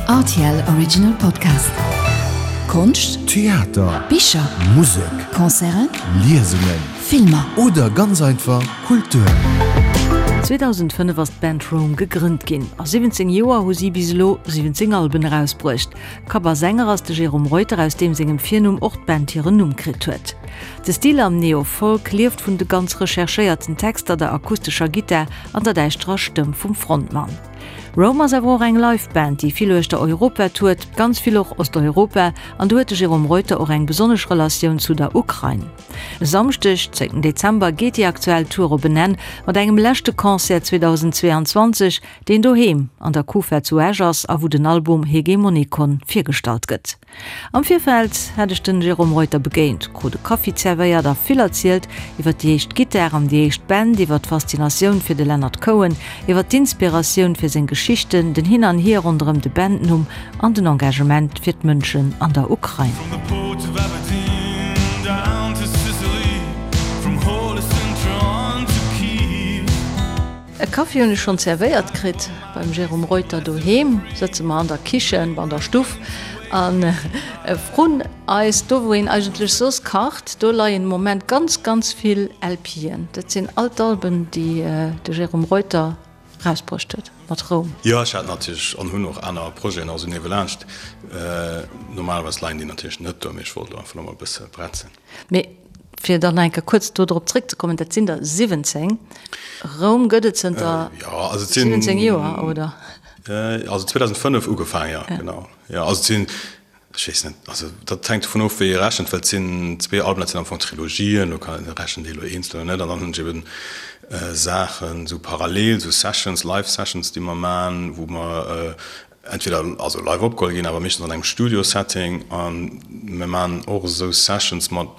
Rtl Original Podcast. Konscht, Theater, Bicher, Musek, Concerten, Liesungen, Filmer. Oder ganz einfach Kultur. 2005 ass d'Band Rome gegrënnt ginn. A 17 Joer hu si bis elo 17 Alben erausbruecht. Kapp a Sänger ass de Jérôme Reuter, aus deem sengem Virnumm och d'Band hiren Numm kritt huet. De Stil am Neo-Folk lieft vun de ganz recherchéierten Texter, der akustescher Gittar an der däischterer Stëmm vum Frontmann. Rome ass awer och eng Live-Band, déi vill uechter Europa tourt, ganz vill och Osteuropa, an do huet de Jérôme Reuter och eng besonnesch Relatioun zu der Ukrain. E Samschdeg, 10 Dezember, geet déi aktuell Tour op en Enn mat engem leschte Concert 2022, deen doheem an der Kufa zu Esch ass a wou den Album Hegemonikon virgestallt gëtt. Am Virfeld hat ech den Jérôme Reuter begéint, krut e Kaffi zerwéiert a vill erzielt iwwer déi éischt Gittar an déi éischt Band, iwwer d'Faszinatioun fir de Leonard Cohen, iwwer d'Inspiratioun fir seng Geschichten, den Hin an Hier ronderëm de Bandnumm an den Engagement fir d'Mënschen an der Ukrain. E Kaffi hunn ech schonn zerwéiert kritt beim Jérôme Reuter doheem. Sëtze mer an der Kichen, an der Stuff a vrun eis, do wou een eigentlech soss kacht, do leien de Moment ganz, ganz vill LPen. Dat sinn all d'Alben, déi de Jérôme Reuter rausbruecht huet mat Roum. Jo, ech hat natierlech an hunn och aner Projeten och esou niewelaanscht. Normalerweis leien déi natierlech net do, mee ech wollt elo einfach nach mol e bësse bretzen. Mee fir dann nach eng Kéier kuerz do drop zréckzekommen, dat sinn der 17. Roum gëtt et zënter 17 Joer, oder? Also 2005 ugefaangen, jo, genau. Jo, also et sinn, ech weess net, also dat hänkt dovun of, wéi ee rechent, well et sinn zwee Alben, dat sinn am Fong Trilogien, do kann ee rechent ee elo eenzel oder net. An dann hunn ech eben Saachen esou parallel, esou Sessions, Live Sessions, déi mer maachen, wou mer entweder also live opgeholl ginn, awer meeschtens an engem Studio-Setting a mir maachen och esou Sessions mat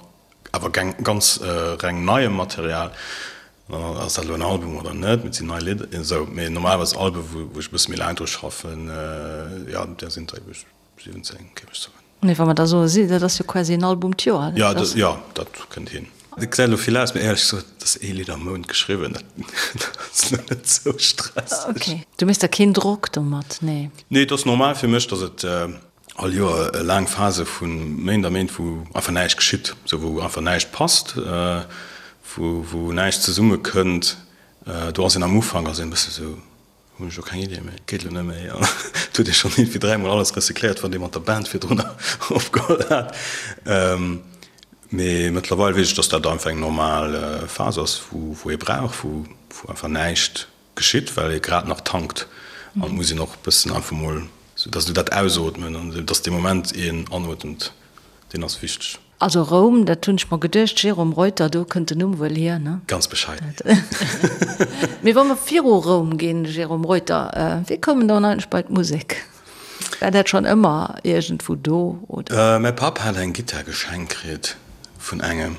awer ganz reng neiem Material. Dann ass dat elo en Album oder net, mee et sinn nei Lidder, esou. Mee normalerweis Albe wou ech e bësse méi laang dru schaffen, jo, där sinn der ebe 17, géif ech soen. Mee wa mer da soe si, dat ass jo quasi en Album d'Joer. Jo, jo, dat kënnt hin. Et gesäit elo vill aus, mee éierlech gesot, et ass ee Lidd am Mount geschriwwen, dat ass elo net sou stresseg. Ok, du méchs der keen Drock domat, nee? Nee, et ass normal fir mech, datt et all Joer laang Phase vu Méint a Méint, wou einfach näischt geschitt, sou wou einfach näischt passt, wou wou näischt zesummekënnt. Do ass een am Ufank ass een e bësse sou, Hunn ech lo keng Idee méi, geet lo net méi. An et huet ee schonn iergendwéi dräimol alles recycléiert, wat ee mat der Band virdrun opgeholl hat. Mee mëttlerweil weess ech, dass dat einfach eng normal Phas ass, wou ee brauch, wou einfach näischt geschitt, well ee grad nach tankt. An et muss een och e bëssen einfach mol, sou dass du dat ausootmen an dass dee Moment een anotemt, deen ass wichteg. Also Roum, dat hunn ech mer geduecht, Jérôme Reuter, do kënnt den Numm wuel hier, ne? Ganz bescheiden. Mee wa mer viru Roum ginn, Jérôme Reuter, wéi koum en dann eigentlech bei d'Musek? War dat schonn ëmmer iergendwou do, oder? Mäi Papp hat eng Gittar geschenkt kritt vun engem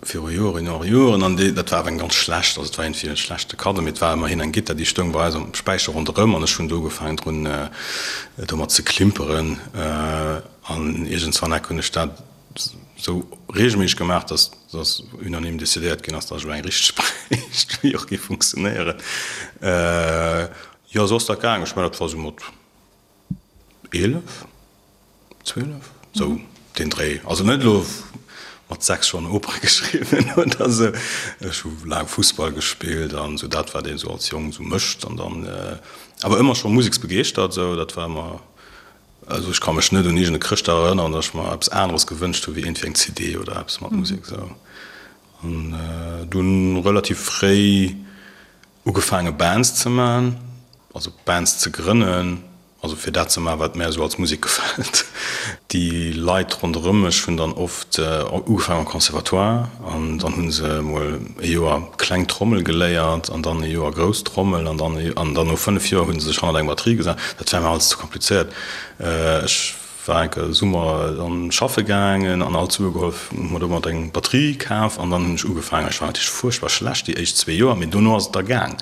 viru Joren, Joren, Joren an déi, dat war awer eng ganz schlecht, also et war iergendwéi e schlechte Kaddo, mee et war ëmmerhin eng Gittar, déi stoung bei eis am Späicher ronderëm an ech hunn do ugefaangen drun domat ze klimperen. An iergendswann eck hunn ech dat esou reegelméisseg gemaach, dass dass unanime decidéiert ginn ass, dass ech elo eng richteg bréicht, wéi och géif funktionéieren. Jo, esou ass dat gaangen. Ech mengen, dat war esou mat 11, 12, esou deen Dréi. Also net elo mat 6 schonn Opere geschriwwen oder esou. Ech hu laang Fussball gespillt an esou dat, wat een esou als Jong esou mécht. An dann awer ëmmer scho museksbegeeschtert, esou dat war ëmmer. Also ech ka mech net un iergend e Chrëschtdag erënneren, datt ech mer eppes aneres gewënscht hu wéi iergendwéi eng CD oder eppes mat Musek esou. An dunn relativ fréi ugefaange Bands ze man, also Bands ze grënnen, also fir dat ze man wat mär esou als Musek gefält. Déi Leit ronderëm mech hunn dann oft ugefaangen am Conservatoire an dann hu se emol e Joer kleng Trommel geléiert an dann e Joer grouss Trommel an dann an dann no 5 Joer hu se sech hannert eng Batterie gesat. Dat war mir alles ze komplizéiert. Ech war enke Summer dann schaffe gaangen an all d'Sue geholl, hu mer domat eng Batterie kaf an dann hunn ech ugefaangen. Ech war natierlech fuerchtbar schlecht déi éischt zwee Joer, mee dono ass et da gaang.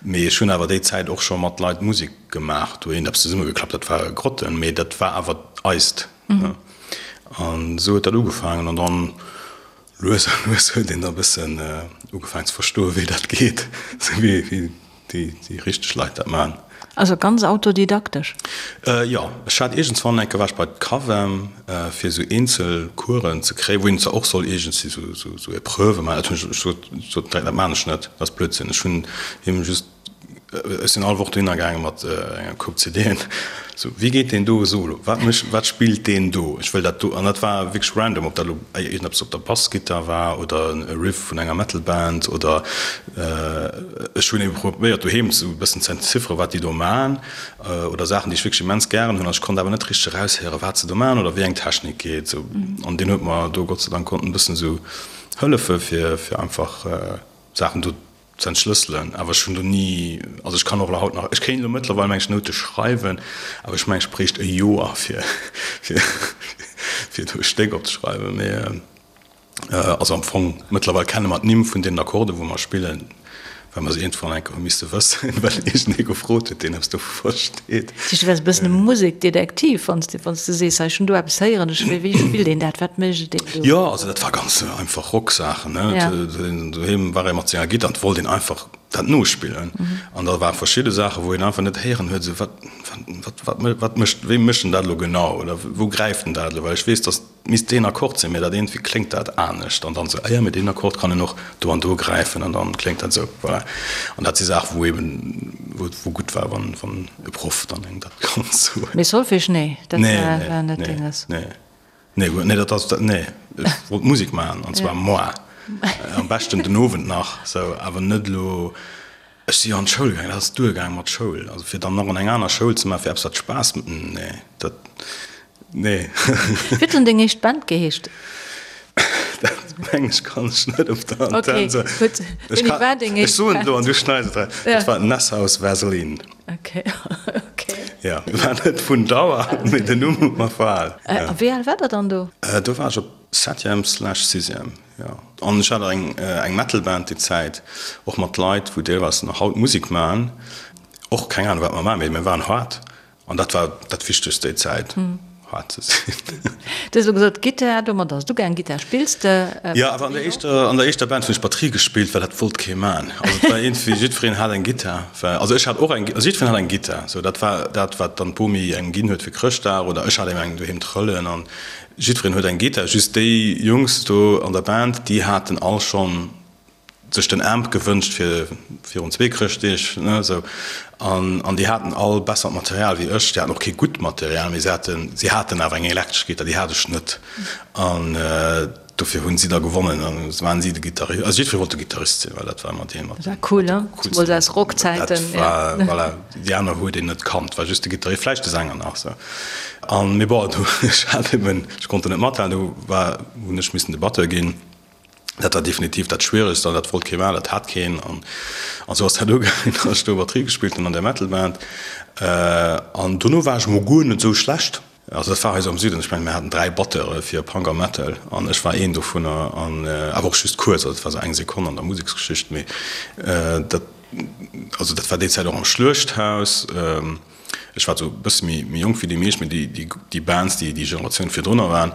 Mee ech hunn awer déi Zäit och scho mat Leit Musek gemaach, do eent eppes zesummegeklappt, dat war Grotten, mee dat war awer eist. An esou huet dat ugefaangen an dann Lues a lues huet een da bëssen ugefaangen ze verstoen, wéi dat geet, sou wéi déi richteg Leit dat maachen. Also ganz autodidaktesch? Jo, ech hat iergendswann eng Kéier war ech bei d'Cavem fir esou eenzel Coursen ze kréien, wou een zwar och soll iergendwéi esou esou Epreuve maachen. Dat hunn ech, ech sot sot direkt, dat maan ech net, dat ass Blödsinn. Ech hunn him just, ech sinn all Woch dohinner gaange mat enger Koup CDen, esou, wéi geet deen do Solo, wat mécht, wat spillt deen do, ech wëll dat do. An dat war wierklech random, ob dat elo iergendeppes op der Bassgittar war oder e Riff vun enger Metal-Band oder Ech hunn ebe probéiert doheem esou e bëssen ze entzifferen, wat déi do man oder Saachen, déi ech wierklech immens gären hunn. An ech konnt awer net richteg eraushéieren, wat se do man oder wéi eng Technik geet. Esou. An deen huet mer do Gott sei Dank konnten e bëssen esou hëllefe fir, fir einfach Saachen do ze entschlësselen. Awer ech hunn do ni, also ech kann och elo haut nach, ech kéint elo mëttlerweil meng ech Noute schreiwen, awer ech mengen ech bréicht e Joer fir, fir, fir do e Stéck opzeschreiwen. Mee. Also am Fong, mëttlerweil kenne mer d'Nimm vun deenen Akkorden, wou mer spillen, well mer se iergendwann eng Kéier hu misste wëssen, well iergendee gefrot huet, deen eppes dovu versteet. Dat heescht, du waars e bëssen e Musekdetektiv, wann s de, wann s de sees, hei, ech hunn do eppes héieren, ech, wéi spillt een dat, wat mécht een do? Jo, also dat war ganz einfach Rocksaachen, ne. Ja. Doheem war ee mat senger Gittar an et wollt een einfach dat nospillen. An da ware verschidde Saachen, wou een einfach net héieren huet, esou, wat, wat, wat, wat mécht, wéi mécht en dat elo genau oder wou gräift en dat elo? Well ech weess, datt Misst deen Akkord sinn, mee dat eent, wéi kléngt dat anescht? An dann esou, ah jo, mee deen Akkord kann een och do an do gräifen an dann kléngt dat esou. Voilà. An dat si Saachen, wou eben, wou et wou gutt war, wann, wann e Proff dann engem dat konnt soen. Mee Solfège, nee, dat war, war net denges? Nee, nee, nee, nee, dat ass, dat, nee. Ech wollt Musek maachen, an zwar moar, am beschten den Owend nach, sou, awer net elo. Ech si jo an d'Schoul gaangen, dat ass duergaang mat Schoul. Also fir dann nach an eng aner Schoul ze maachen, fir eppes wat Spaass, nee, dat, nee. Wéi huet denn deng éischt Band geheescht? Dat meng ech kann ech net op der Antenn soen. Okay, gutt. Wéini war deng éischt Band? Ech soen et elo an du schneis et eraus. Dat war Nesshaus Vaseline. Okay, okay. Jo, war net vun Dauer, mee den Numm huet mer verhal. A wéi al war der dann do? Do war ech op Septième slash Sixième. Jo, an ech hat eng eng Metal-Band déi Zäit, och mat Leit, wou deelweis nach haut Musek maachen. Och keng Ahnung, wat mer maachen, mee mir waren haart. An dat war dat Wichtegst déi Zäit, haart ze sinn. Du hues elo gesot, Gittar, domat ass et ugaangen. Gittar spills de? Jo, awer an der éischter, an der éischter Band hunn ech Batterie gespillt, well dat wollt kee maachen. Also et war iergendwéi, jiddwereen hat eng Gittar, well, also ech hat och eng, also jiddwereen hat eng Gittar. Sou, dat war dat, wat dann d'Bomi engem ginn huet fir Chrëschtdag oder ech hat ebe eng doheem trëllen an Jiddwereen huet eng Gittar, just déi Jungs do an der Band, déi haten all schonn sech den Amp gewënscht fir virun zwee Chrëschtdeeg, ne, esou. An, an déi haten all bessert Material wéi ech. Déi haten och kee gutt Material, mee se haten, si haten awer eng elektresch Gittar, déi hat ech net. An dofir hunn si da gewonnen an da waren si de Gittarist. Also jiddweree wollt de Gittarist sinn, well dat war ëmmer dee mat Dat war cool, ne? Zemools aus Rockzäiten, Dat war, voilà. Déi aner huet een net kannt, war just de Gittarist, vläicht de Sänger nach sou. An mee bon, do ech hat eben, ech konnt do net mathalen, do war, hunn ech missen de Batteur ginn. Dat war definitiv dat Schwieregst an dat wollt kee maachen, dat hat keen. An an sou ass dat ugaangen, datt ech do Batterie gespillt hunn an där Metal-Band. An dono war ech mol guer net sou schlecht. Also dat war hei sou am Süden, ech mengen mir haten 3 Batteure fir Punk a Metal an ech war een dovunner an awer och just kuerz, also dat war sou eng Sekonn an der Museksgeschicht, mee dat also dat war déi Zäit och am Schluechthaus. Ech war sou e bësse méi méi jonk wéi déi meescht, mee déi déi déi Bands déi déi Generatioun virdrunner waren,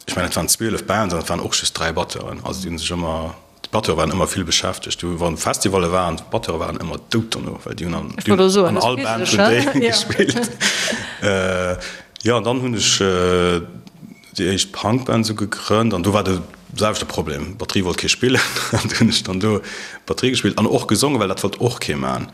Ech mengen, et waren 12 Bands an et waren och just 3 Batteuren. Also déi hu sech ëmmer, d'Batteure waren ëmmer vill beschäftegt. Du wann Festivalle waren, d'Batteure waren ëmmer dout dono, well déi hunn an, Ech wollt elo soen, an all Band hunn déi gespillt. Jo, an dann hunn ech déi éischt Punkband esou gegrënnt an do war de selwechte Problem, Batterie wollt kee spillen an du hunn ech dann do Batterie gespillt an och gesongen, well dat wollt och kee man.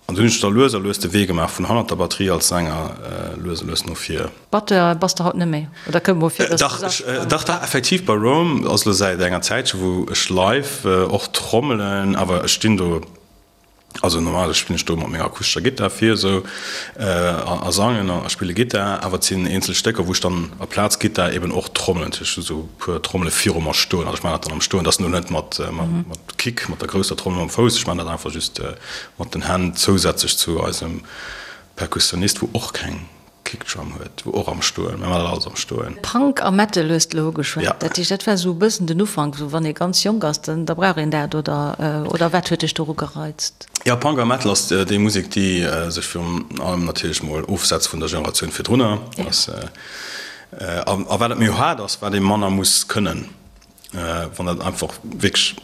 An dunn hunn ech da lues a lues de Wee gemaach vun hannert der Batterie als Sänger lues a lues no vir. Batteur bass de haut net méi, oder kënnt mol vir, dass du sachs? Dach, dach, effektiv bei Rome ass elo säit enger Zäitche wou ech live och trommelen, awer ech stinn do, also normalerweis spillen ech do mat menger akustescher Gittar vir esou a sangen a spille Gittar, awer et sinn eenzel Stécker wou ech dann aplaz Gittar eben och trommelen. Ech hu sou e puer Trommele viru mer stoen, also ech maachen dat dann am Stoen, dat ass elo net mat Kick, mat der grousser Trommel mam Fouss, ech maachen dat einfach just Mat den Hänn, zousätzlech zu eisem Perkussionist, wou och keng Kickdrum huet, wou och am Stoen, mir man dat alles am Stoen. Punk a Metal hues de elo ugeschwat. Dat heescht, dat war esou e bëssen den Ufank, esou wann ee ganz jonk ass, dann da brauch een dat, oder oder wat huet dech doru gereizt? Jo, Punk a Metal ass déi Musek, déi sech virun allem natierlech mol ofsetzt vun der Generatioun virdrunner. A wat et méi haart ass, wat ee manner muss kënnen. Wann dat einfach wierklech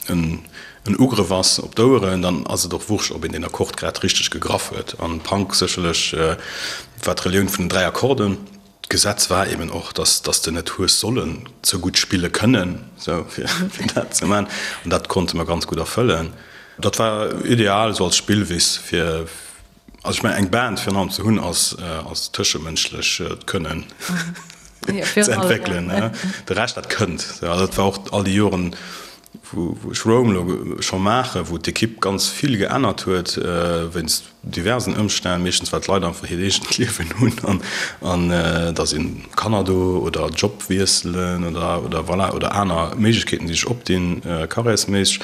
en. en Ugrëff ass op d'Oueren, dann ass et och wurscht, ob een deen Akkord grad richteg gegraff huet. An Punk sécherlech war d'Relioun vun den 3 Akkorden. D'Gesetz war eben och, dass dass de net hues sollen ze gutt spille kënnen, sou fir dat ze man. An dat konnte mer ganz gutt erfëllen. Dat war ideal esou als Spillwiss fir, also ech mengen eng Band virun allem ze hunn ass ass tëschemënschlech d'Kënnen ze entwéckelen. De Rescht dat kënnt. Also dat war och all déi Joren, wou ech Roam elo scho maachen, wou d'Ekipp ganz vill geännert huet wéinst diversen Ëmstänn, meeschtens well d'Leit einfach hiert eegent Liewen hunn an da si Kanner do oder Job wiesselen oder oder voilà oder aner Méiglechkeeten déi sech opdinn carrièresméisseg.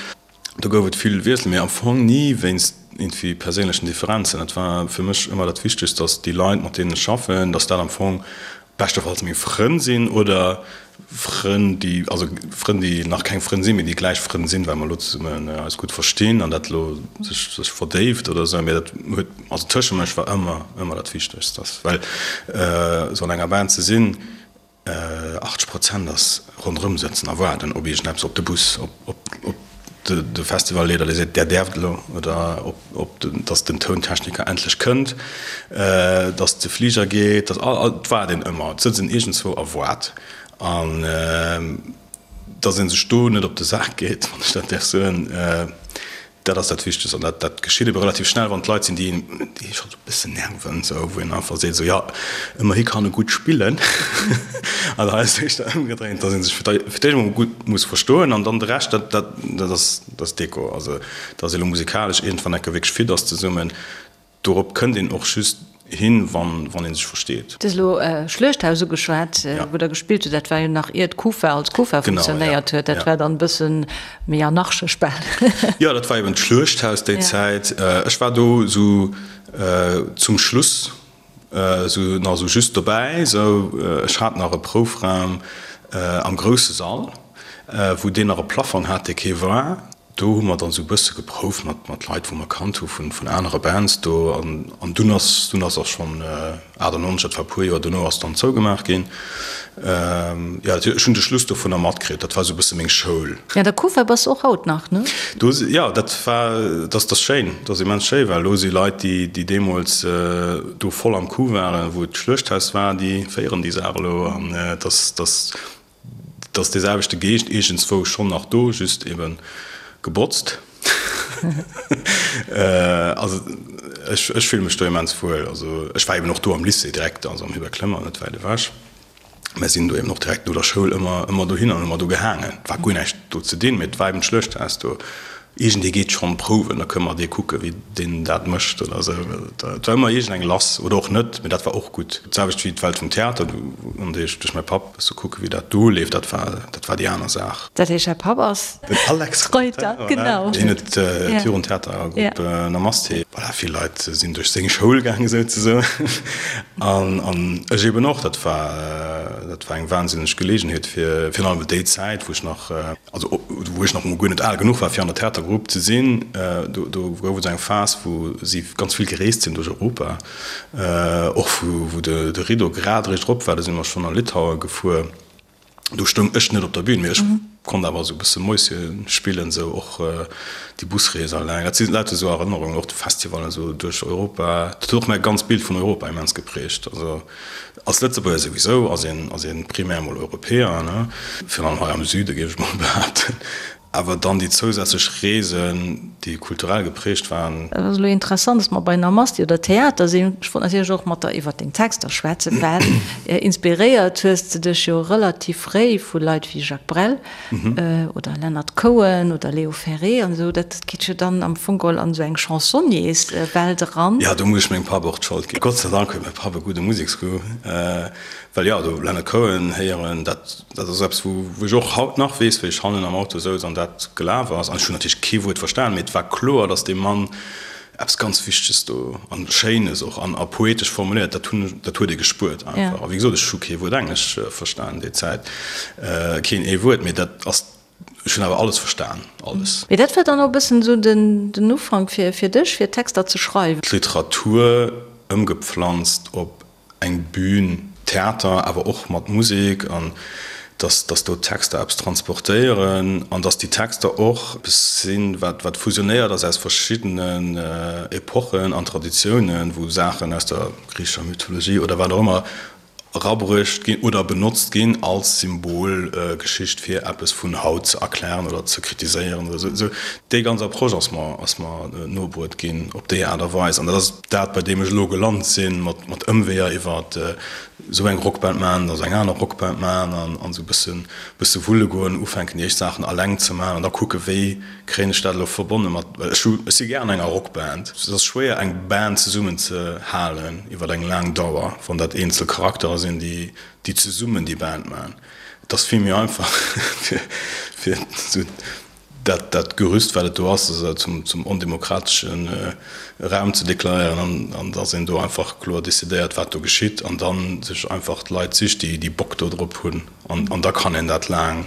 Do gouf et vill Wiessel, mee am Fong ni wéinst iergendwéi perséinlechen Differenzen. Et war fir mech ëmmer dat Wichtegst, datt déi Leit mat deenen ech schaffen, datt dat am Fong beschtefalls meng Frënn sinn oder Frënn, déi, also Frënn, déi nach keng Frënn sinn, mee déi gläich Frënn sinn, well mer elo zesummen eis gutt verstinn an dat elo sech, sech verdéift oder esou. Mee dat huet, also tëschemënsch war ëmmer, ëmmer dat Wichtegst, dass, well esou an enger Band ze sinn, 80 Prozent ass ronderëm sëtzen a waarden op iergendeppes, op de Bus, op, op, op de, de Festivalleeder, dee seet, där däerft elo, oder op, op de, dass den Tountechniker endlech kënnt, dass de Fliger geet, dass all, all, et waart een ëmmer, et sëtzt een iergendzwou a waart. An dass ee sech do net op de Sak geet, wann ech dat däerf soen, dat ass dat Wichtegst. An dat, dat geschitt ebe relativ schnell, wann et Leit sinn, déi een, déi ee scho sou e bëssen nerven, sou, wou een einfach seet, sou, jo, ëmmerhi kann e gutt spillen. An hei ass et éischter ëmgedréint, dass ee sech fir d'éischt emol gutt muss verstoen an dann de Rescht, dat, dat, dat ass, dat ass Deko. Also, dass ee lo musikalesch iergendwann enke wierklech fit ass zesummen, Dorop kënnt een och just hin, wann ee sech versteet. Du hues elo Schluechthaus ugeschwat, wou Der gespillt hutt. Dat war jo nach ier d'Kufa als Kufa funktionéiert huet. Dat war dann e bësse méi anarchesch bal. Jo, dat war eben d'Schluechthaus déi Zäit. Ech war do esou zum Schluss esou nach esou just dobäi. Esou, ech hat nach e Proufraum am grousse Sall, wou deen nach e Plafong hat, dee kee war. Do hu mer dann esou e bësse geprouft mat mat Leit wou mer kannt hu vun vun anere Bands do an an dunn ass dunn ass och schonn 98, dat war e puer Joer dono, ass dann zougemaach ginn. Jo, ech hunn de Schluss dovunner matkritt, dat war esou e bësse meng Schoul. Ja, der Kufa bass och haut nach, ne? Do si, jo, dat war, dat ass schéin, dat ass immens schéi, well elo si Leit déi déi deemools do voll am Coup waren, wou et d'Schluechthaus war, déi féieren déi Saach elo an et ass, dat ass Et ass dee selwechte Geescht iergendswou schonn nach do, just ebe gebotzt. Also ech, ech fille mech do immens wuel. Also ech war eben och do am Lycée direkt, also am Hubert Clement, net wäit ewech. Mer sinn do eben och direkt no der Schoul ëmmer, ëmmer dohin an hu mer do gehaangen. Et war guer näischt do ze dinn, mee et war eben d'Schluechthaus do. Iergendee geet schonn prouwen, da kënne mer dee kucke wéi deen dat mécht oder esou. Et war ëmmer iergendeng lass oder och net, mee dat war och gutt. D'selwecht wéi d'Welt vum Theater, an déi ech duerch mäi Papp e bësse kucke wéi dat do leeft, dat war dat war déi aner Saach. Dat heescht, däi Papp ass Den Alex Reuter, genau. Hien huet d'Jugendtheatergrupp Namaste. Voilà, vill Leit sinn duerch seng Schoul gaangen souzesoen an an ech eben och. Dat war dat war eng wahnsinneg Geleegenheet fir virun allem déi Zäit, wou ech nach, Also wou ech nach emol guer net al genuch war fir an der Theatergrupp ze sinn, do do gouf et esou eng Phas wou si ganz vill gereest sinn duerch Europa, och wou wou de de Rideau grad eréischt erop war, do si mer schonn a Litaue gefuer. Do stoung ech net op der Bühn, mee ech konnt awer esou e bësse Mäuschen spillen, esou och déi Busrees alleng. Dat si lauter esou Erënnerungen, och de Festivallen esou duerch Europa. Dat huet och mäi ganzt Bild vun Europa immens geprägt. Also Als Lëtzebuerger souwisou ass een, ass een primär mol Europäer, ne, virun allem hei am Süde géif ech mol behaapten. Awer dann déi zousätzlech Reesen, déi kulturell geprägt waren. Et ass elo interessant, dass mer bei Namaste oder Theater sinn. Ech wollt natierlech och mat der iwwert deng Texter schwätzen, well inspiréiert hues de dech jo relativ fréi vu Leit wéi Jacques Brel. Oder Leonard Cohen oder Léo Ferré an esou, dat geet jo dann am Fong geholl an esou eng Chansonniers-Welt eran. Jo, do muss ech mengem Papp och d'Schold ginn. Gott sei Dank huet mäi Papp e gudde Museksgoût, well jo, do Leonard Cohen héieren, dat dat ass eppes, wou wou ech och haut nach weess, wéi ech hannen am Auto souz an dat gelaf ass. An ech hunn natierlech kee Wuert verstan, mee et war kloer, datt dee Mann Eppes ganz Wichteges do an Schéines och an a poetesch formuléiert, dat hunn, dat huet ee gespuert einfach. A wéi gesot, ech hu kee Wuert Englesch verstan déi Zäit, keen ee Wuert, mee dat ass, ech hunn awer alles verstan, alles. Mee dat war dann och e bëssen esou den, den Ufank fir, fir dech, fir Texter ze schreiwen? D'Literatur ëmgepflanzt op eng Bühn, Theater, awer och mat Musek an. Dass, dass do d'Texter eppes transportéieren an dass déi Texter och eppes sinn, wat, wat fusionéiert ass aus verschiddenen Epochen an Traditiounen, wou Saachen aus der griichescher Mythologie oder wat och ëmmer erabruecht ginn oder benotzt ginn als Symbolgeschicht fir eppes vun haut ze erklären oder ze kritiséieren oder esou. Esou déi ganz Approche ass mer, ass mer nobruet ginn op déi Aart a Weis an dat ass dat, bei deem ech elo gelant sinn, mat, mat Ëmweeër iwwer esou eng Rockband maachen, da sou eng aner Rockband maachen an, an esou e bëssen, bësse wulle goen, ufänken déi éischt Saachen alleng ze maachen an da kucke wéi Kréien ech dat elo verbonne mat, well ech hu, ech si gär an enger Rockband. Et ass schwéier eng Band zesummen ze halen iwwer eng laang Dauer, wann dat eenzel Charakterer sinn, déi, déi zesummen déi Band maachen. Et ass vill méi einfach fir, fir esou dat, dat Gerüst wat et do ass, esou zum, zum ondemokratesche Raum ze deklaréieren an, an dass een do einfach kloer decidéiert wat do geschitt an dann sech einfach d'Leit sicht, déi, déi Bock do drop hunn an, an da kann een dat laang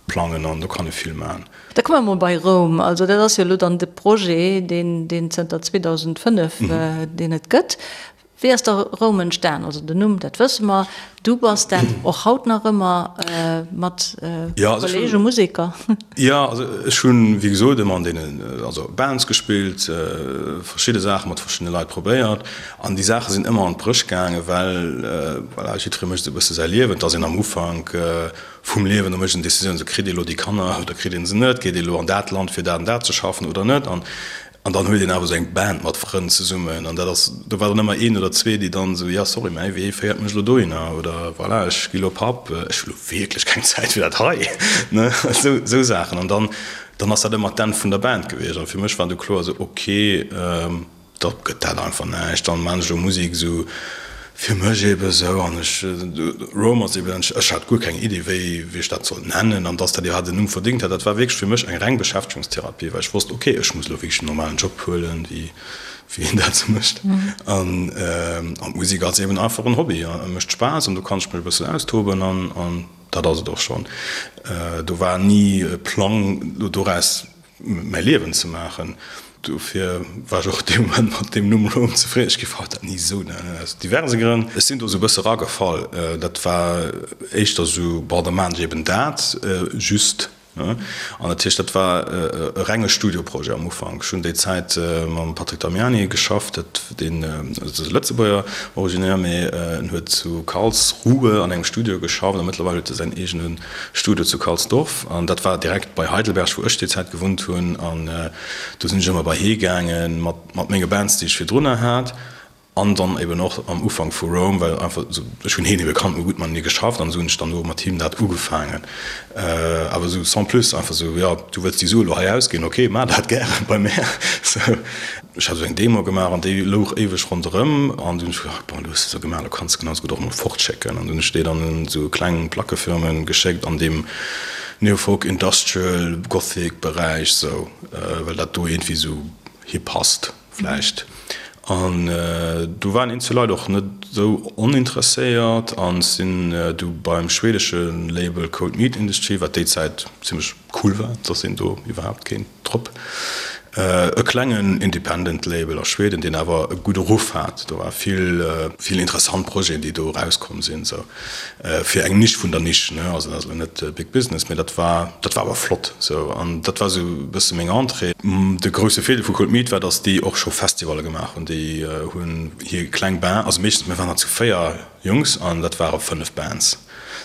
plangen an do kann ee vill maachen. Da komme mer mol bei Roum. Also dat ass jo elo dann de Projet, deen deen zënter 2005 deen et gëtt. Wéi ass da Roum entstan? Also den Numm, dat wësse mer. Du bass dat och haut nach ëmmer mat Kollege Museker. Jo, also ech hunn, wéi gesot, ëmmer an deenen, also Bands gespillt, verschidde Saache mat verschiddene Leit probéiert an déi Saache sinn ëmmer an d'Bréch gaangen, well voilà, jiddweree mécht esou e bësse säi Liewen. Et ass een am Ufank Vum Liewen, do mécht een Decisiounen, sou kritt ee lo déi Kanner oder kritt een se net, geet ee lo an dat Land fir dat an dat ze schaffen oder net an an dann huet een awer sou eng Band mat Frënn zesummen an dat ass, do war dann ëmmer een oder zwee, déi dann sou, jo sorry, mäi Wee féiert mech lo dohinner oder voilà, ech gi lo Papp, ech hu lo wierklech keng Zäit fir dat hei, ne, sou sou Saachen an dann dann ass dat ëmmer d'Enn vun der Band gewiescht an fir mech war du kloer sou, ok, Da gëtt dat einfach näischt. Dann maan ech elo Musik esou fir mech eben esou an ech, Rome ass eben, ech hat guer keng Iddi wéi wéi ech dat sollt nennen an dass dat iwwerhaapt en Numm verdingt hat. Dat war wierklech fir mech eng reng Beschäftegungstherapie, well ech wosst, ok, ech muss elo wierklech en normalen Job huelen, wéi wéi een dat esou mécht an an d'Musik ass eben einfach en Hobby a mécht Spaass an do kann ech mech e bëssen austoben an an dat ass et och schonn. Do war ni e Plang elo doraus mäi Liewen ze maachen. Dofir war ech och dee Moment mat deem Numm Rome zefridden. Ech géif haut dat ni esou nennen, aus diverse Grënn. Ech sinn do esou e bësse ragefall. Dat war éischter esou, bon, da maachen ech eben dat just. An dat heescht, dat war e renge Studioprojet am Ufank. Ech hunn déi Zäit mam Patrick Damiani geschafft, dat deen ass e Lëtzebuerger originaire, mee en huet zu Karlsruhe an engem Studio geschafft a mëttlerweil huet e säin eegene Studio zu Karlsdorf an dat war direkt bei Heidelberg, wou ech déi Zäit gewunnt hunn an do sinn ech ëmmer bei hee gaangen mat mat menge Bands, déi ech virdrunner hat an dann eben och am Ufank vu Rome, well einfach esou ech hunn heen ebe kannt, mir hu gutt matenee geschafft an esou hunn ech dann do mat him dat ugefaangen. Awer esou sans plus, einfach esou, jo du wëlls déi Sue elo hei ausginn, ok, maach dat gären bei mär. Sou. Ech hat esou eng Demo gemaach an déi louch éiweg ronderëm an dunn hunn ech gedacht, bon, elo hues de se gemaach, elo kanns de genau esou gutt och emol fortschécken. An dunn hunn ech déi dann un esou kleng Plackefirmen geschéckt an deem Neofolk, Industrial, Gothic Beräich esou, well dat do iergendwéi esou hi passt vläicht. An do waren eenzel Leit och net esou oninteresséiert an sinn du beim schwedesche Label Cold Meat Industry, wat déi Zäit zimmlech cool war, dass een do iwwerhaapt kéint drop. E klengen Independent Label a Schweden, deen awer e gudde Ruff hat. Do war vill, vill interessant Projeten, déi do erauskomm sinn, sou fir eng Nisch vun der Nisch, ne. Also dat ass elo net Big Business, mee dat war, dat war awer flott sou. An dat war sou e bësse meng Entrée. De grousse Virdeel vu Cold Meat war, datt déi och scho Festivalle gemaach hunn. Déi hunn hir kleng Band, also meeschtens, mir waren der zu 4 Jungs an dat ware 5 Bands.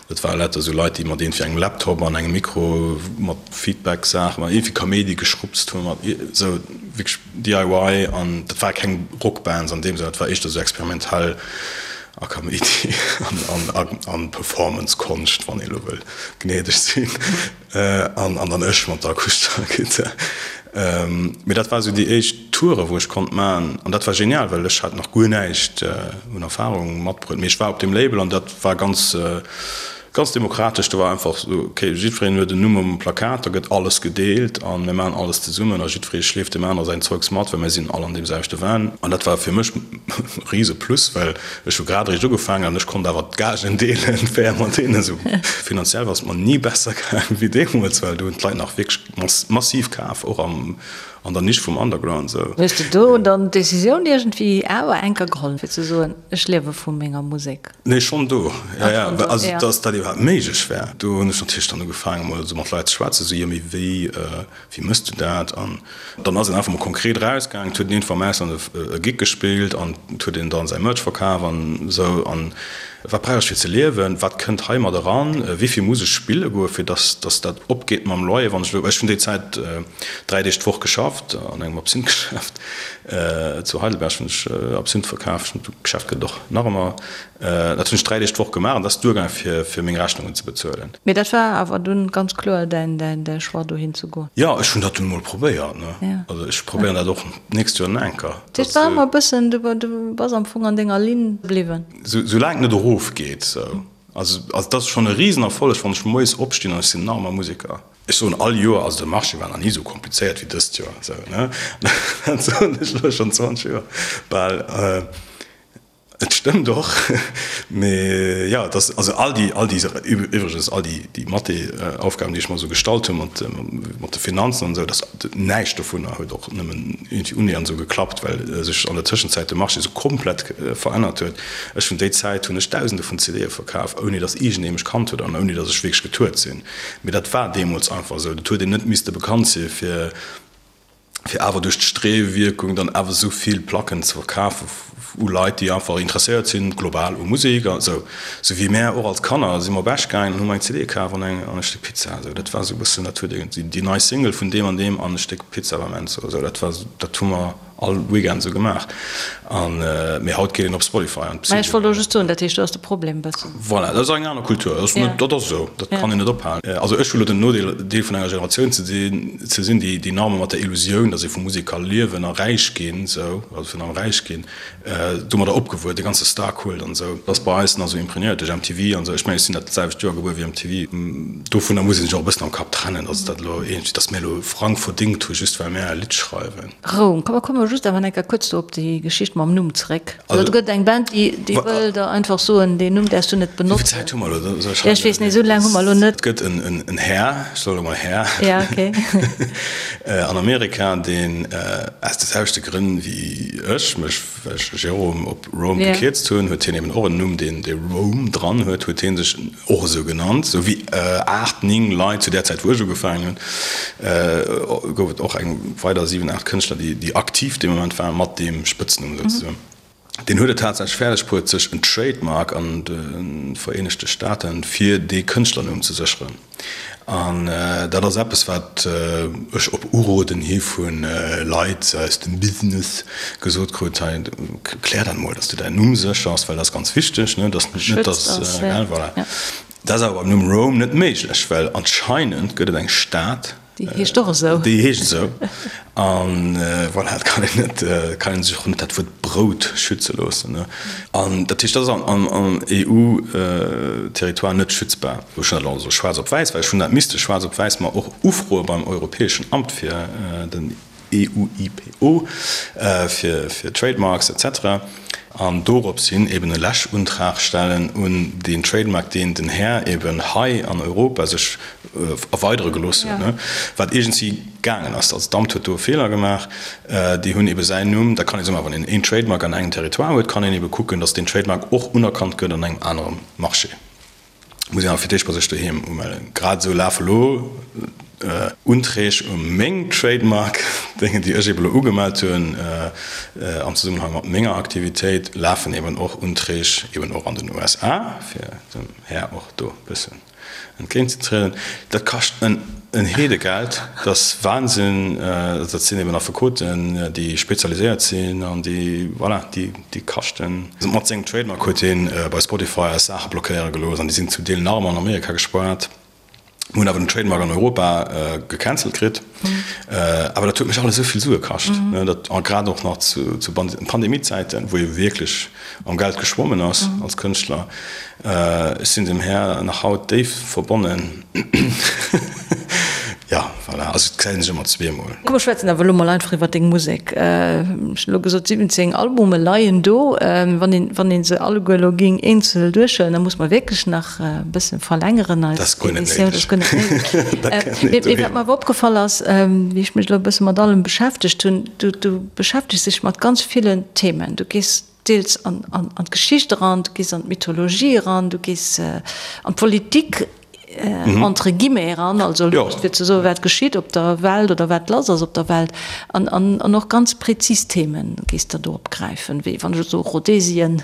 Dat ware lauter esou Leit, déi mat iergendwéi engem Laptop an engem Mikro mat Feedback-Saachen, mat iergendwéi Kaméidi geschrupst hunn, mat esou wierklech DIY. An dat ware keng Rockbands an deem Sënn, dat war éischter esou experimentell a Kaméidi an Performance-Konscht, wann ee elo wëll gnädeg sinn. An dann ech mat der akustescher Gittar. Mee dat war esou déi éischt Toure wou ech konnt man. An dat war genial, well ech hat nach guer näischt un Erfahrung matbruet. Mee ech war op deem Label an dat war ganz, ganz demokratesch. Do war einfach esou, ok, jiddwereen huet en Numm um Plakat, da gëtt alles gedeelt a mir maachen alles zesummen a jiddweree schleeft deem aner säin Zeugs mat, well mir sinn all an deem selwechte Van. An dat war fir mech e rise Plus, well Ech hu grad eréischt ugefaangen an ech konnt awer d'Gagen deelen, fair mat deenen. Esou finanziell war et mer ni besser gaangen wéi deemools, well do hunn d'Leit nach wierklech massiv kaf, och am. An der Nisch vum Underground sou. Hues de do dann d'Decisioun iergendwéi awer enker geholl fir ze soen, ech liewe vu menger Musek? Nee, schonn do, jo, jo. Also datt dat iwwerhaapt méiglech war, do hunn ech natierlech dann ugefaangen emol esou mat Leit ze schwätzen, esou, jo mee wéi, wéi mëss du dat? An dann ass een einfach mol konkret erausgaangen, et huet een iergendwou am Ausland e Gig gespillt an et huet een dann säi Merch verkaf an esou. An wat brauch ech fir ze liewen, wat kënnt hei mat eran, wéi vill muss ech spille goe fir datt datt dat opgeet mam Loyer, wann ech elo, ech hunn déi Zäit 3 Deeg d'Woch geschafft an engem Absinthgeschäft zu Heidelberg hunn ech Absinth verkaf, d'Geschäft gëtt et och nach ëmmer. Dat hunn ech 3 Deeg d'Woch gemaach an dat ass duergaangen, fir, fir meng Rechnungen ze bezuelen. Mee dat war awer dunn ganz kloer däin, däin, däi Choix, dohin ze goen? Jo, ech hunn dat dunn emol probéiert, ne. Ja. Also ech probéieren dat och d'nächst Joer nach eng Kéier. Dat heescht, war ëmmer e bëssen, du, du bass am Fong an denger Linn bliwwen? Sou, soulaang et net erofgeet, sou. Also, also dat ass schonn e Risenerfolleg, wann ech moies opstinn an ech sinn nach ëmmer Museker. Ech soen all Joer, also de Marché war nach ni esou komplizéiert wéi dëst Joer, sou, ne. Dat soen ech elo schonn 20 Joer bal. Et stëmmt och, mee jo, et ass, also all déi, all déi, iwwregens all déi, déi Mathé-Aufgaben, déi ech mer esou gestallt hunn mat, mat de Finanzen an esou, dass näischt dovunner huet och nëmmen iergendwéi unnähernd esou geklappt, well sech an der Tëschenzäit de Marché esou komplett verännert huet. Ech hunn déi Zäit hunn ech Dausende vun CDe verkaf, ouni dass iergendee mech kannt huet an ouni dass ech wierklech getourt sinn. Mee dat war deemools einfach esou, dat huet een net misste bekannt si fir. fir awer duerch d'Streewierkung dann awer esou vill Placken ze verkafen u Leit, déi einfach interesséiert sinn global u Musek a sou. Sou wéi mär och als Kanner si mer op Esch gaangen an hu mer eng CD kaf an eng an e Stéck Pizza. Esou dat war esou e bëssen, dat huet iergendwéi déi nei Single vun deem an deem an e Stéck Pizza beim Enzo. Esou dat war, dat hu mer all Weekend esou gemaach. An mee haut geet een op Spotify an Mä ech wollt elo just soen, dat heescht do ass de Problem e bëssen. Voilà, dat ass eng aner Kultur. Dat ass net, dat ass esou, dat kann een net ophalen. Also ech hu lo den Nodeel, Deel vun enger Generatioun ze sinn, ze sinn, déi déi nach ëmmer mat der Illusioun, datt ee vu Musek ka liewen a räich ginn, esou, also virun allem räich ginn, domadder opgewuess, de ganze Star-Kult an esou, dat ass bei eis nach esou imprégnéiert duerch MTV an esou. Ech mengen, ech sinn dat selwecht Joer gebuer wéi MTV. Dovunner muss ee sech och e bëssen am Kapp trennen, datt dat elo iergendwéi, datt mir elo Frang verdingt hu just well mär e Lidd schreiwen. Roum. Komm, komme mer just awer eng Kéier kuerz do op déi Geschicht mam Numm zeréck. Also, do gëtt eng Band, déi, déi wëll der einfach soen, deen Numm däerfs du net benotzen. Wéi vill Zäit hu mer elo? Soll ech Ja, ech weess net, esou laang hu mer elo net. Et gëtt en, en Här, ech soe elo mol Här, Ja, okay. an Amerika, deen aus de selwechte Grënn wéi ech mech, well ech Jérôme op Rome gekierzt hunn, huet hien eben och en Numm, deen dee Rome dran huet, huet hie sech och esou genannt, esou wéi 8, 9 Leit zu där Zäit wou ech ugefaangen hunn, gouf et och eng weider 7, 8 Kënschtler, déi aktiv dee Moment waren, mat deem Spëtznumm souzesoen. Deen huet et tatsächlech fäerdeg bruet, sech en Trademark an de Vereenegte Staaten fir dee Kënschtlernumm ze sécheren. An dat ass eppes, wat ech op Uroden hi vu Leit aus dem Business gesot krut, hei, klär dat mol, dass du däin Numm séchers, well dat ass ganz wichteg, ne, dass net, dass, gell, voilà. Dat ass awer beim Numm Rome net méiglech, well anscheinend gëtt et eng Stad, Déi heescht och esou. Déi heescht esou. An voilà, et kann een net, kann een sech och net dat Wuert Brout schütze loossen. An dat heescht, dat ass am EU-Territoire net schützbar. Ech hunn dat elo also schwaarz op wäiss, well ech hunn dat misste schwaarz op wäiss mer och ufroe beim Europäeschen Amt fir den EUIPO, fir Trademarks et cetera. An dorops hin eben e Läschuntrag stellen un deen Trademark, deen den Här eben hei an Europa sech erweidere gelooss huet, wat iergendwéi gaangen ass. Also d'Amt huet do e Feeler gemaach. Déi hunn ebe säin Numm, da kann ee soen, ma wann een een Trademark an engem Territoire huet, kann een ebe kucken, datt deen Trademark och unerkannt gëtt an engem anere Marché. Muss een awer fir d'éischt bei sech doheem umellen. Grad esou lafe lo Unträg u meng Trademark, Déngen déi ech eben elo ugemellt hunn am Zesummenhang mat menger Aktivitéit, lafen eben och Unträg eben och an den USA, fir dem Här och do e bëssen entgéintzetrieden. Dat kascht en en Heedegeld, dat ass Wahnsinn. Dat sinn eben Affekoten, déi spezialiséiert sinn an déi, voilà, déi. Déi kaschten. Mat sengem Trademark huet hien bei Spotify eis Saache blockéiere gelooss an déi sinn zum Deel nach ëmmer an Amerika gespaart. Mir hunn awer den Trademark an Europa gecancelt kritt. Awer dat huet mech alles esou vill Sue kascht, dat a grad och nach zu Pandemiezäiten, wou ee wierklech am Geld geschwommen ass als Kënschtler. Ech sinn dem Här nach haut déif verbonnen. Jo, voilà, also et gesäit een sech ëmmer zweemol. Komm mer schwätzen awer elo mol einfach iwwer deng Musek. Ech hunn elo gesot, 17 Albume leien do. Wann een, wann een se alleguer elo géing eenzel duerchhuelen, da muss mer wierklech nach e bësse verlängeren eis Emissioun. Dat ass guer net néideg. Mee wat mer awer opgefall ass, wéi ech mech elo e bësse mat allem beschäftegt hunn, du, du beschäftegs dech mat ganz villen Themen. Du gees deels an, an, an d'Geschicht eran, du gees an d'Mythologie eran, du gees an d'Politik entre guillemets eran, also just fir ze soen, wat geschitt op der Welt oder wat lass ass op der Welt. An, an, an och ganz prezis Themen gees de do opgräifen, wéi wann ech elo soe Rhodesien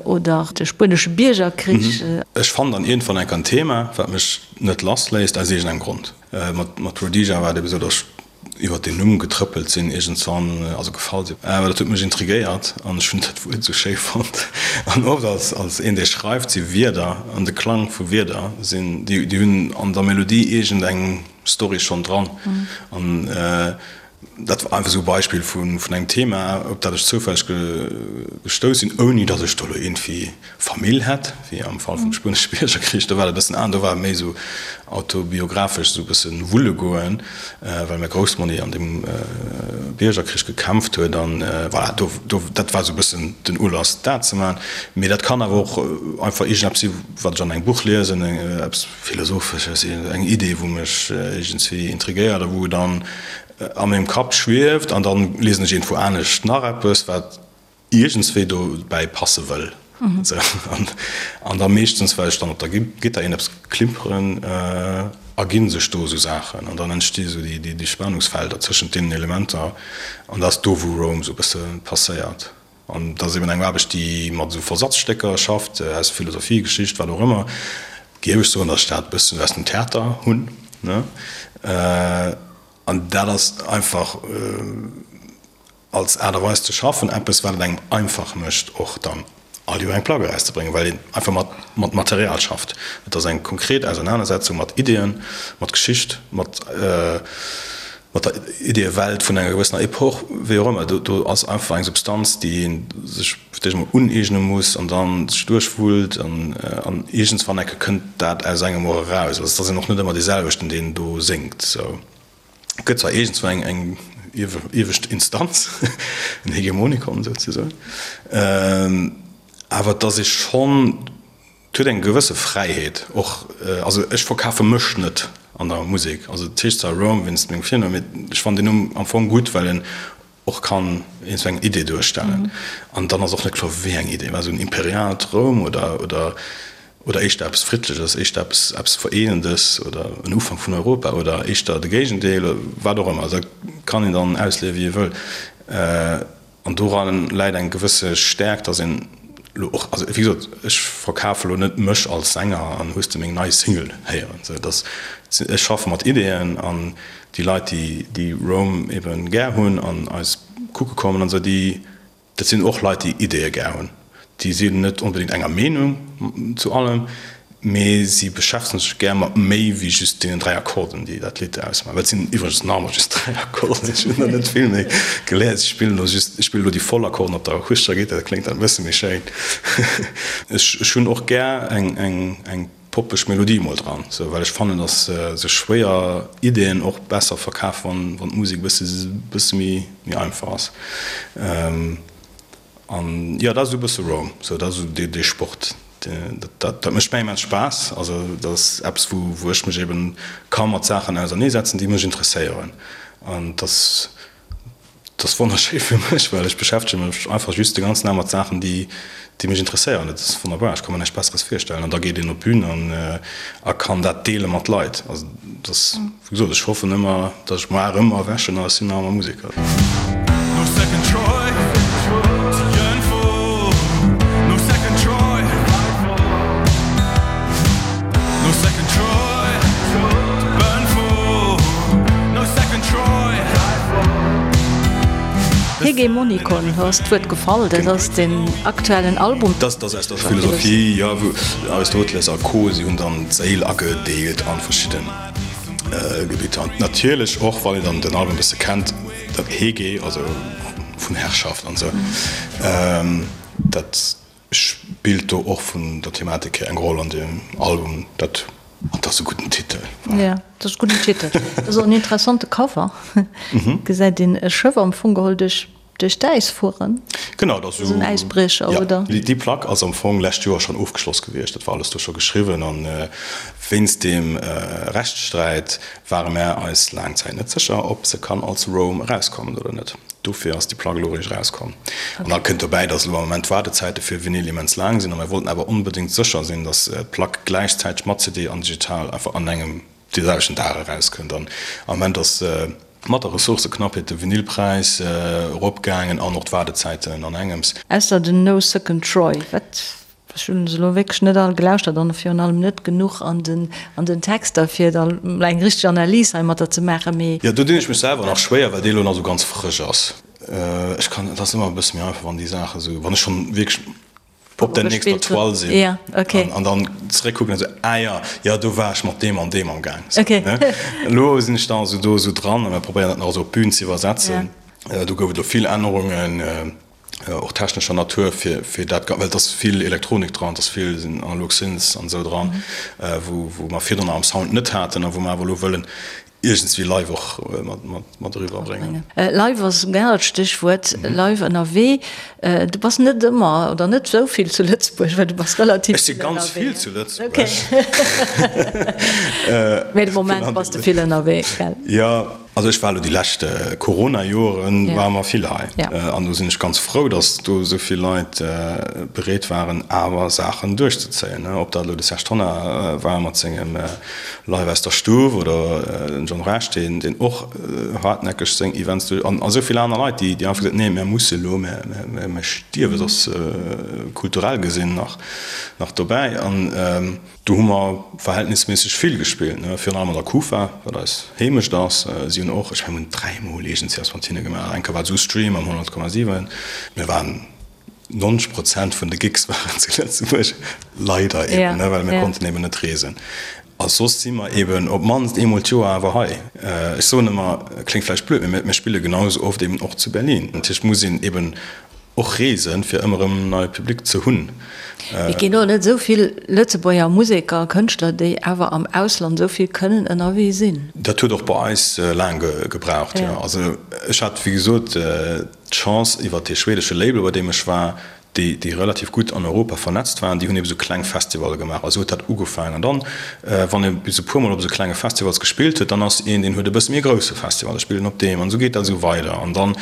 oder de spuenesche Biergerkrich. Ech fannen dann iergendwann enk en Thema, wat mech net lassléisst, aus iergendengem Grond. Mat, mat Rhodesia war et ebe sou, datt ech iwwert deen Numm getrëppelt sinn iergendswann, also gefall sinn. Awer dat huet mech intrigéiert an ech hunn dat Wuert esou schéi fonnt. An oft als, als een, dee schreift, si Wierder an de Klang vu Wierder sinn, déi, déi hunn an der Melodie iergend eng Story schonn dran. An dat war einfach esou e Beispill vun, vun engem Thema, op dat ech zoufälleg gestouss sinn, ouni datt ech do elo iergendwéi Famill hätt, wéi am Fall vum Spuenesche Biergerkrich, do war et e bëssen anescht, do war et méi esou autobiographesch, esou e bëssen wulle goen, well mäi Groussmonni an deem Biergerkrich gekämpft huet an voilà, do, do, dat war esou e bëssen den Ulass dat ze maachen. Mee dat kann awer och einfach iergendeppes si wat ech an engem Buch liesen, eppes Philosophesches, eng Idee wou mech iergendswéi intrigéiert a wou dann a mengem Kapp schwieft an dann liesen ech iergendwou anescht nach eppes wat iergendswéi dobäi passe wëll. An da meeschtens, well ech dann op der Gittar iergendeppes klimperen, erginn sech do esou Saachen an dann entsti sou déi Spannungsfelder tëschent deenen Elementer an dat ass do, wou Rome esou e bësse passéiert. An dat ass eben eng Aarbecht, déi mat esou Versatzstécker schafft, aus Philosophie, Geschicht, wat och ëmmer. Géif ech soen, datt ech dat e bëssen aus dem Theater hunn, ne? An dat ass einfach. Als Aart a Weis ze schaffen, eppes wat et engem einfach mécht och dann all Joer eng Plack erauszebréngen, well een einfach mat mat Material schafft. Et ass eng konkret Ausernanersetzung mat Ideeën, mat Geschicht, mat mat der Ideeëwelt vun enger gewëssener Epoch, wéi och ëmmer. Do do ass einfach eng Substanz, déi ee sech fir d'éischt emol uneegne muss an dann sech duerchwullt an an iergendswann enke kënnt dat aus engem och eraus. Also et ass een och net ëmmer dee selwechten, deen do séngt sou. Et gëtt zwar iergendswou eng eng iewescht Instanz, en Hegemonikon souzesoen, awer et ass ee schonn, et huet eng gewësse Fräiheet och. Also ech verkafe mech net an der Musek. Also et heescht zwar Rome wéinst mengem Virnumm, mee ech fannen deen Numm am Fong gutt, well en och kann een sou eng Idee duerstellen. An dann ass och net kloer, wéi eng Idee. War esou en imperiaalt Roum oder, oder, oder éischter eppes Friddleches, éischter eppes, eppes Vereenendes oder en Ufank vun Europa oder éischter de Géigendeel, wat och ëmmer. Dat kann een dann ausleeë wéi ee wëll. An doran läit eng gewësse Stäerkt, dass een elo och, also wéi gesot, ech verkafe elo net mech als Sänger an hues de meng nei Single héieren, sou dass ech schaffe mat Ideeën an déi Leit, déi déi Rome ebe gär hunn an eis kucke kommen an esou, déi, dat sinn och Leit, déi Ideeë gär hunn. Déi sinn net onbedéngt enger Meenung zu allem, mee si beschäftegen sech gär mat méi wéi just deenen 3 Akkorden, déi dat Lidd ausmaachen. Dat sinn iwwregens nach ëmmer just 3 Akkorden, ech hunn der net vill méi geléiert. Ech spillen elo just, ech spillen elo déi voll Akkorden op der akustescher Gittar, dat kléngt dann e bësse méi schéin. Ech hunn och gär eng, eng, eng poppeg Melodie mol dran, sou, well ech fannen, dass sech schwéier Ideen och besser verkafen, wann, wann d'Musek e bësse, bësse méi, méi einfach ass. An jo, dat ass esou e bësse Rome, sou, dat ass esou dee, dee Sport, dat, dat, dat mécht mir immens Spaass. Also dat ass eppes, wou, wou ech mech eben ka mat Saachen auserneesetzen, déi mech interesséieren. An dass. Dat ass wonnerschéi fir mech, well ech beschäftege mech einfach just de ganzen Dag mat Saachen, déi mech interesséieren. Dat ass wonnerbar, ech ka mer näischt Besseres virstellen. An da geet een op d'Bün an a kann dat deele mat Leit. Also dat ass, wéi gesot, ech hoffen ëmmer, datt ech muar erëm erwächen a ech sinn nach ëmmer Museker. Hegemonikon, do ass d'Wuert gefall, dat ass den aktuellen Album. Dat ass aus der Philosophie, jo, wou Aristoteles a Co. Si hunn dann d'Séil agedeelt a verschidde Gebitter. An natierlech och, wann een dann den Album e bësse kennt, dat Hege, also vun Herrschaft an esou, dat spillt do och vun der Thematik hier eng Roll an deem Album. Dat. An dat ass e gudden Titel. Jo, dat ass e gudden Titel. Dat ass och en interessante Cover. Gesäit een e Schëff am Fong geholl duerch duerch d'Äis fueren. Genau, dat ass esou en Äisbriecher, oder? Jo, déi Plack ass am Fong lescht Joer schonn ofgeschloss gewiescht. Dat war alles do scho geschriwwen. An wéinst deem Rechtssträit ware mär eis laang Zäit net sécher, ob se kann als Rome erauskommen oder net. Dofir ass déi Plack elo eréischt erauskomm. An da kënnt dobäi, datt elo am Moment d'Waardezäite fir Vinyl immens laang sinn a mir wollten awer onbedéngt sécher sinn, datt d'Plack gläichzäiteg mat CD an digital einfach an engem dee selwechten Dag erauskënnt. An am Moment ass mat der Ressourcëknappheet de Vinylpräis eropgaangen an och d'Waardezäiten an engems. Ausser den No Second Troy, wat Ech hunn se elo wierklech net all gelauschtert an virun allem net genuch an den an den Texter fir da eng richteg Analys heimatter ze maachen, mee. Jo, do dinn ech mech selwer nach schwéier, well déi elo nach esou ganz frësch ass. Ech kann, et ass ëmmer e bësse méi einfach, wann déi Saache esou, wann ech schonn wierklech op der nächster Toile sinn an dann zeréckkucken an esou, ah jo, jo, do war ech mat deem an deem am Gaang. Ne? Elo sinn ech da esou do esou dran a mir probéieren dat nach esou op d'Bün ze iwwersetzen. Do gouf et elo vill Ännerungen. och technescher Natur, fir fir dat, well et ass vill Elektronik dran, et ass vill sinn analog Synths an esou dran, wou wou mer virdrun am Sound net haten a wou mer awer elo wëllen iergendswéi live och mat mat mat eriwwer bréngen. Live ass en anert Stéchwuert, live ënnerwee. Du bass net ëmmer oder net esou vill zu Lëtzebuerg, well du bass relativ Ech si ganz vill zu Lëtzebuerg. Mee de Moment bass de vill ënnerwee, gell? Jo. Also ech war elo déi lescht Corona-Joren ware mer vill hei an do sinn ech ganz frou, datt do esou vill Leit bereet waren awer Saachen duerchzezéien. Ob dat elo de Serge Tonnar war mat sengem Live aus der Stuff oder den John Rech, deen deen och hartnäckeg seng Events duerch an esou vill aner Leit, déi déi einfach gesot hunn, nee mär musse elo, mär stierwe soss kulturell gesinn nach nach dobäi. An Do hu mer verhältnisméisseg vill gespillt, ne, virun allem an der Kufa, wat eis Heemecht ass. Si hunn och, ech mengen, mir hunn dräimol iergendswéi eppes mat hinne gemaach. Eng Kéier war et esou Stream am 100,7. Mir waren, 90 Prozent vun de Gigs waren zu Lëtzebuerg, leider eben, ne, well mir konnten eben net reesen. A soss si mer eben op d'mannst eemol d'Joer awer hei. Ech soen ëmmer, kléngt vläicht blöd, mee mir spille genau esou oft eben och zu Berlin. Natierlech muss een eben Och reesen, fir ëmmer erëm neie Public ze hunn. Et ginn och net esou vill Lëtzebuerger Museker a Kënschtler, déi awer am Ausland esou vill kënnen ënnerwee sinn. Dat huet och bei eis laang gebraucht, jo. Also ech hat, wéi gesot, d'Chance iwwer dee schwedesche Label, bei deem ech war, déi, déi relativ gutt an Europa vernetzt waren, déi hunn ebe sou kleng Festivalle gemaach. A sou huet dat ugefaangen. An dann, wann ee bis e puermol op esou klenge Festivals gespillt huet, dann ass een, deen huet e bësse méi e grousse Festival, da spillt en op deem. An esou geet dat esou weider. An dann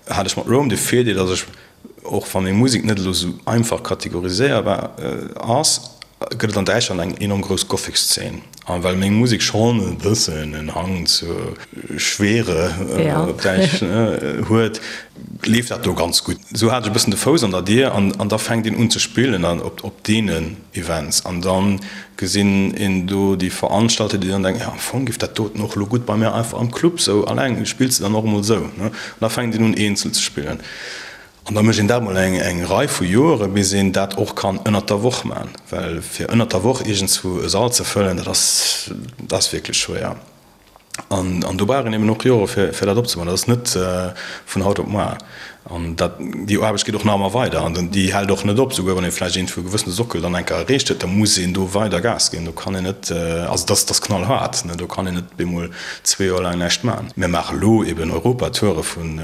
hat ech mat Rome de Virdeel, datt ech, och wa meng Musek net elo esou einfach kategoriséierbar ass, gëtt et an Däitschland eng enorm grouss Gothic-Szene. A well meng Musek schonn e bëssen en Hang zur Schwere, op Däitsch, huet, leeft dat do ganz gutt. Esou hat ech e bëssen de Fouss an der Dier an da fänkt een un ze spillen op deenen Events an dann gesinn een do déi Veranstalter, déi dann denken, jo am Fong giff dat doten och elo gutt bei mär einfach am Club sou alleng, spills de dann och emol sou, ne? An da fänkt een un eenzel ze spillen an da mécht een dat mol eng eng Rei vu Joere bis een dat och kann ënnert der Woch man, well fir ënnert der Woch iergendswou e Sall ze fëllen, dat ass dat ass wierklech schwéier. An, an do brauch een eben och Jore fir, fir dat opzebauen. Dat ass net vun haut op muar. An dat, déi Aarbecht geet och nach ëmmer weider an déi hält och net op. Souguer wann ee vläicht iergendwou e gewëssene Sockel dann eng Kéier erreecht huet, da muss een do weider Gas ginn. Do kann een net, also dat ass, dat ass knallhaart, ne, do kann een net bemol zwee Joer laang näischt maachen. Mir maache elo eben Europatoure vun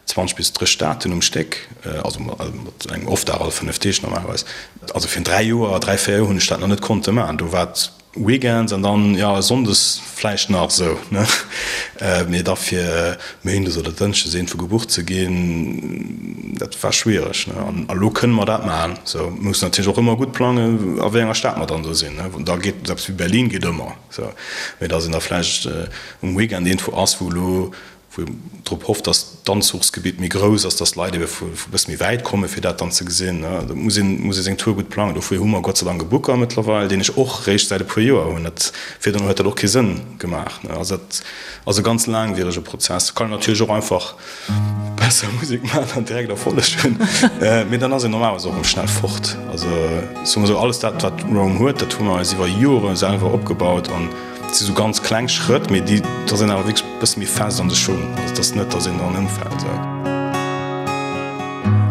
20 bis 30 Staaten um Stéck, also mat engem Off-Dag all 5 Deeg normalerweis. Also virun dräi Joer, dräi, véier Joer hunn ech dat nach net konnte maachen. Do war et Weekends an dann jo Sonndes vläicht nach esou ne, mee da fir Méindes oder Dënschdes iergendwou gebucht ze ginn, dat war schwiereg ne. An elo kënne mer dat maachen esou. Mir mussen natierlech och ëmmer gutt plangen a wéi enger Stad mer dann do sinn ne. Da geet eppes wéi Berlin geet ëmmer esou, mee datt een da vläicht um Weekend iergendwou ass wou elo wou een drop hofft, dass d'Anzuchsgebitt méi grouss ass, dass d'Leit ebe vu bësse méi wäit kommen, fir dat dann ze gesinn. Do muss een, muss ee seng Tour gutt plangen. Dofir hu mer Gott sei Dank e Booker mëttlerweil, deen ech och réischt säit e puer Joer hunn. Dat, virdrun huet dat och kee Sënn gemaach. Also dat ass e ganz laangwierege Prozess. Kann een natierlech och einfach besser Musek maachen an direkt Erfolleg hunn, mee dann ass een normalerweis och erëm schnell fort. Also soe mer esou, alles dat, wat Rome huet, dat hu mer eis iwwer Jore selwer opgebaut an, Et si sou ganz kleng Schrëtt, mee déi da sinn awer wierklech e bësse méi fest an de Schung. Also et ass net, datt een dran ëmfält.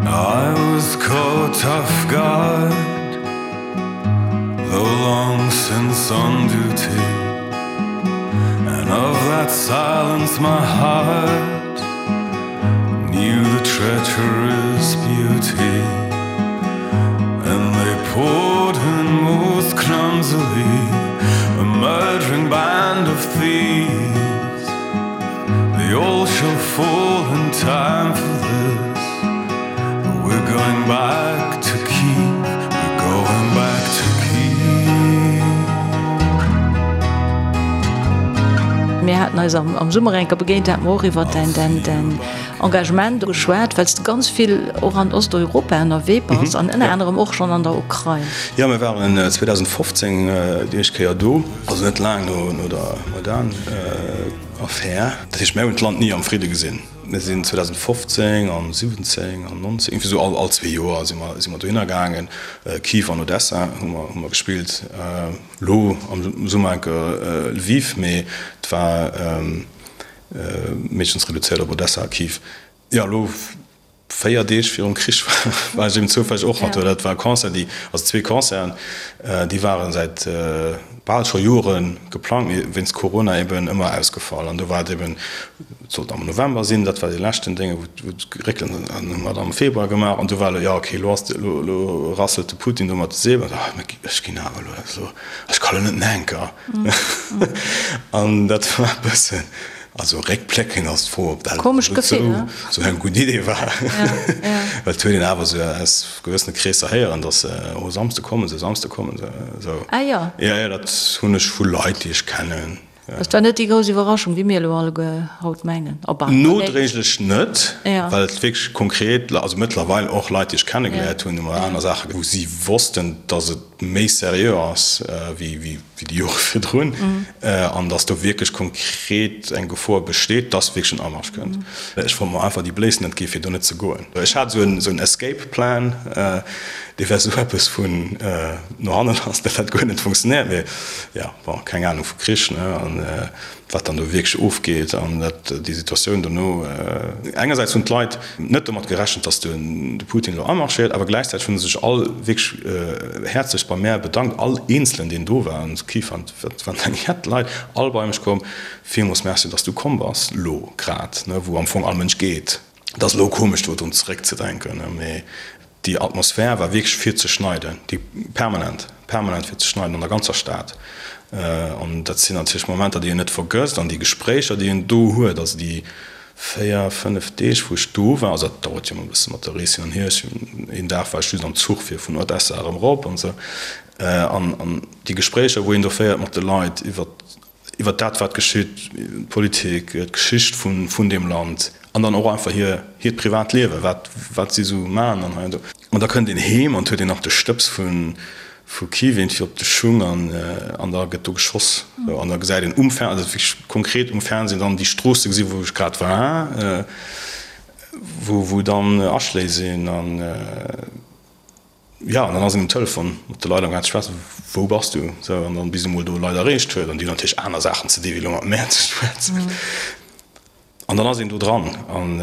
I was caught off guard, though long since. Police on duty And of that silence my heart Knew the treacherous beauty And they poured in most clumsily A murdering band of thieves They all shall fall in time for this But we're going back to Kiev We're going back to Kiev Mir haten eis am Summer eng Kéier begéint, da hate mer och iwwer däin, däin, däin Engagement geschwat, well s de ganz vill och an Osteuropa ënnerwee bass an ënner anerem och schonn an der Ukrain. Jo, mir waren 2015 déi éischt Kéier do, also net laang no der Maidan-Affär. Dat heescht, mir hunn d'Land ni am Fridde gesinn. Mir sinn 2015 an 17 an 19, iergendwéi esou all zwee Joer si mer, si mer dohinner gaangen. Kiew an Odessa hu mer, hu mer gespillt. Elo am Summer enke Lviv, mee et war meeschtens reduzéiert op Odessa a Kiew. Jo, elo 4 Deeg virum Krich war ech eben zoufälleg och nach do. Dat war e Concert, déi, also zwee Concerten, déi ware säit bal scho Jore geplangt, mee wéinst Corona eben ëmmer ausgefall. An do war et eben, et sollt am November sinn, dat war dee leschten Dénge wou et geréckelt ass, an hu mer et am Februar gemaach. An du war elo, jo okay, elo ass de, elo, elo rasselt de Putin do mat de Säbel. Ah, mä ech ginn awer elo, also ech ka lo net enker. An dat war e bëssen. Also réckbléckend ass d'Fro, ob dat Komescht Gefill, ne? esou eng gutt Idee war. Well et huet een awer esou aus gewëssene Kreesser héieren, datt se, oh Samsde kommen se, Samsde kommen se, esou. Ah jo. Jo, jo, dat hunn ech vu Leit, déi ech kennen. Et war net déi grouss Iwwerraschung, wéi mir elo alleguer haut mengen. Op alle. Nodréiglech net, well et wierklech konkret, also mëttlerweil och Leit, déi ech kennegeléiert hunn, hu mer aner Saache, wou si wossten, datt et méi seriö ass wéi wéi déi Jore virdrun, an datt do wierklech konkret eng Gefor besteet, datt wierklech en Amarsch kënnt. Ech wollt mer einfach déi Bléiss net gi fir do net ze goen. Ech hat esou en Escape Plan, dee war esou eppes vun no hanne lass, dat hat guer net funktionéiert. Mee jo, bon, keng Anung vu Krich, ne, an wat dann do wierklech ofgeet an dat déi Situatioun dono. Engersäits hunn d'Leit net domat gerechent, datt de Putin elo amarschéiert, awer gläichzäiteg hu se sech all wierklech häerzlechst bei mär bedankt, all eenzelen deen do war an Kiew waren, et waren eng jett Leit, all bei mech komm, villmools Merci, datt s du komm bass elo grad, wou am Fong all Mënsch geet. Et ass elo komesch do drun zeréckzedenken, mee déi Atmosphär war wierklech fir ze schneiden, déi permanent, permanent fir ze schneiden an der ganzer Stad. An dat sinn natierlech Momenter, déi een net vergësst an déi Gespréicher, déi een do huet, also déi 4, 5 Deeg, wou ech do war, also dat dauert jo ëmmer e bësse mat der Rees hin an hier, ech hunn een Dag war ech just am Zuch fir vun Odessa erëm erop an esou, an déi Gespréicher, wou een do féiert mat de Leit iwwert iwwer dat wat geschitt, d'Politik, d'Geschicht vun deem Land an dann och einfach hir hiert privat Liewen, wat wat si sou maachen an hei an do. An da kënnt een heem an huet een nach de Stëbs vu vu Kiew iergendwéi op de Schung an an da gëtt do geschoss. Sou an da gesäit een um Fer also wierklech konkret um Fernsehen dann déi Stroosse gesi wou ech grad war, wou wou dann Aschléi sinn an. Jo, an dann ass een um Telefon mat de Leit am gaang ze schwätzen, Wou bass du? Sou, an dann bis ee mol do Leit erreecht huet, an déi hunn natierlech aner Saachen ze di wéi elo mat mär ze schwätzen. An dann ass een do dran. An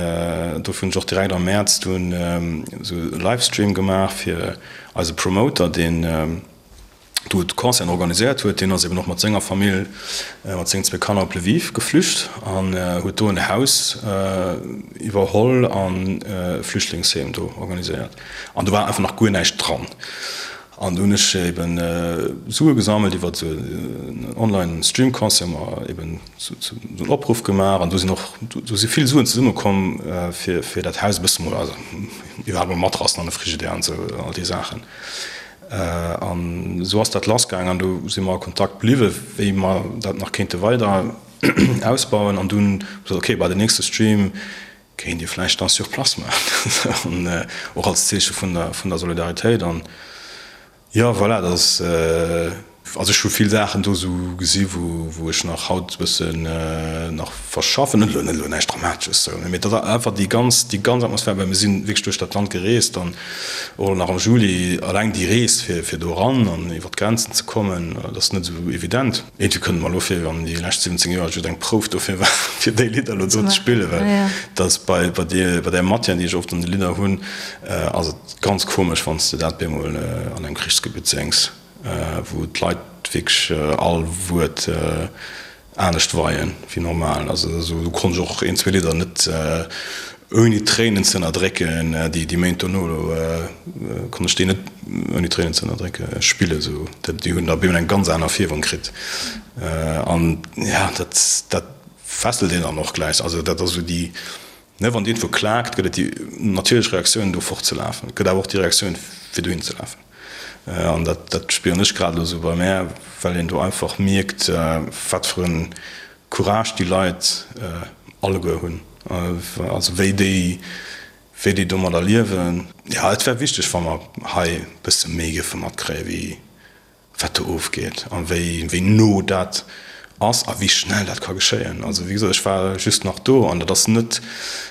dofir hunn ech och direkt am Mäerz dunn esou e Livestream gemaach fir eise Promoter, deen do d'Concerten organiséiert huet, deen ass eben och mat senger Famill, mat sengen zwee Kanner op Lviv geflücht an huet do en Haus iwwerholl an e Flüchtlingsheem do organiséiert. An do war einfach nach guer näischt dran. An do hunn ech eben Sue gesammelt iwwer esou en Online-Stream-Concert, hu mer eben esou en Opruff gemaach an do sinn och, do si vill Suen zesummekomm fir, fir dat Haus e bësse mol, also iwwerhaapt mol Matrassen an e Frigidaire an esou all déi Saachen. An esou ass dat lassgaang an do si mer a Kontakt bliwwen, wéi mer dat nach kéinte weider ausbauen. An dunn hu mer gesot, okay, bei den nächste Stream kéint Dir vläicht dann sur place maachen, an och als Zeeche vun der, vun der Solidaritéit. An jo, voilà, dat ass, also ech hu vill Saachen do esou gesi wou, wou ech nach haut e bëssen nach verschaffen. Net elo, net elo näischt Dramatesches, sou, mee dat ass einfach déi ganz, déi ganz Atmosphär, well mir si wierklech duerch dat Land gereest an Och nach am Juli, alleng déi Rees fir fir do eran an iwwer d'Grenzen ze kommen, dat ass net esou evident. Iergendwéi kënnt et mer elo vir, wéi wann déi lescht 17 Joer just eng Prouf dofir war, fir déi Lidder elo do ze spillen, well dat ass bei bei deer bei där Matière, déi ech oft an de Lidder hunn, ass et ganz komesch, wann s de dat bemol an engem Krichsgebitt séngs, wou d'Leit. wierklech all Wuert anescht weien wéi normal. Also do konnt ech och een, zwee Lidder net ouni Tréinen ze ënnerdrécken, déi déi Méint dono do konnt ech déi net ouni Tréinen ze ënnerdrécke spillen. Esou déi hunn da op eemol eng ganz aner Fierwung kritt. An ja dat dat fesselt een dann och gläich. Also dat ass esou déi Ne, wann iergendwou klaakt, gëtt et déi natierlech Reaktioun, do fortzelafen. Et gëtt awer och déi Reaktioun, fir dohin ze lafen. An dat, dat spieren ech grad elo esou bei mär, well een do einfach mierkt, wat fir e Courage déi Leit alleguer hunn, also wéi déi, wéi déi domadder liewen. Jo, et wär wichteg, wa mer hei e bësse méi géife matkréien, wéi wat do ofgeet a wéi wéi no dat ass a wéi schnell dat ka geschéien. Also wéi gesot, ech war just nach do an dat ass net,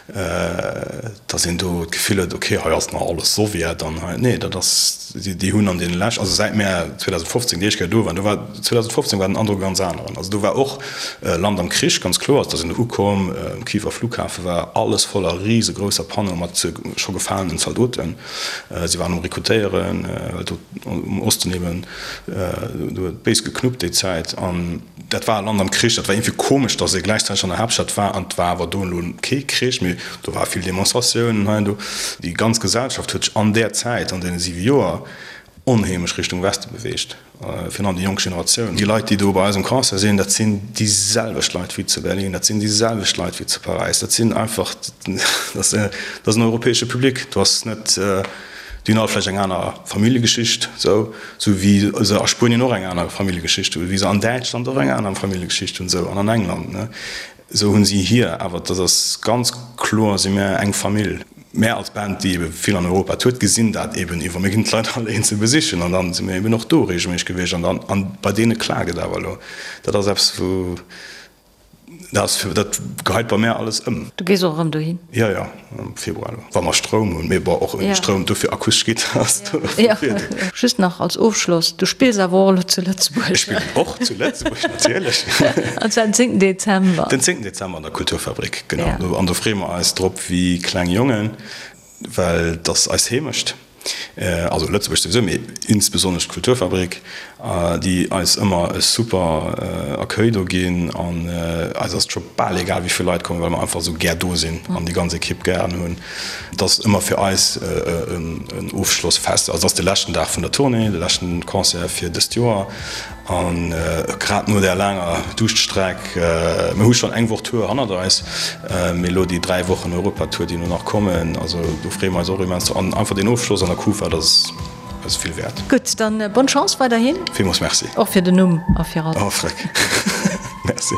datt een do d'Gefill huet, okay, hei ass nach alles Sowjet an hei, nee, dat ass, déi hunn an deene lescht, also säit mär 2015 déi éischt Kéier do waren, do war 2015 war den Androck e ganz aneren. Also do war och Land am Krich, ganz kloer, also da sinn ukomm, um Kiewer Flughafe war alles voller risegrousser Panneaue mat scho gefalenen Zaldoten. Si waren um Rekrutéieren, well do um Osten eben, do huet et béis geknuppt déi Zäit. An dat war e Land am Krich. Dat war iergendwéi komesch, datt ee gläichzäiteg an der Haaptstad war an et war awer do elo kee Krich, mee do ware vill Demonstratiounen hei an do. Déi ganz Gesellschaft huet sech an där Zäit, an deene siwe Joer, onheemlech Richtung Weste beweegt. Virun allem déi jonk Generatioun. Déi Leit, déi do bei eis um Concert sinn, dat sinn déi selwecht Leit wéi zu Berlin, dat sinn déi selwecht Leit wéi zu Paräis. Dat sinn einfach, dat ass en europäesche Public. Do ass net, déi hunn all vläicht eng aner Familljegeschicht, esou, esou wéi se a Spuenien och eng aner Familljegeschicht hunn, wéi se an Däitschland och eng aner Familljegeschicht hunn, esou, an an England, ne. Esou hunn si hir, awer dat ass ganz kloer, si mär eng Famill. Mär als Band, déi ebe vill an Europa tourt, gesinn dat eben iwwer. Mir ginn d'Leit all eenzel besichen an dann si mir eben och do reegelméisseg gewiescht an dann, an bei deene klaakt et awer elo. Dat ass eppes, wou, dat ass fir, dat geheit bei mär alles ëm. Du gees och erëm dohin? Jo, jo, am Februar elo, wa mer Stroum hunn. Mee bon, och ouni Stroum, dofir akustesch Gittar ass do e Virdeel. Just nach als Ofschloss, du spills awer och elo zu Lëtzebuerg? Ech spillen och zu Lëtzebuerg, natierlech. An zwar den zéngten Dezember. Den zéngten Dezember an der Kulturfabrik, genau. An do freeë mer eis drop wéi kleng Jongen, well et ass eis Heemecht. Also Lëtzebuerg souwisou, mee insbesonnesch d'Kulturfabrik, déi eis ëmmer e super Accueil do ginn. An eis ass et scho bal egal, wéi vill Leit kommen, well mer einfach esou gär do sinn an déi ganz Ekipp gären hunn. Et ass ëmmer fir eis en Ofschlossfest. Also et ass de leschten Dag vun der Tournée, de leschten Concert fir dëst Joer. An grad no där laanger Duuschtstreck, mir hu schonn eng Woch Tour hannert eis, mee elo déi 3 Wochen Europatour, déi elo nach kommen, also do freeë mer eis och immens drop. An einfach deen Ofschloss an der Kufa, dat ass eis vill wäert. Gutt, dann bonne Chance weiderhin. Villmools Merci. Och fir den Numm a fir alles. Oh, freck. Merci.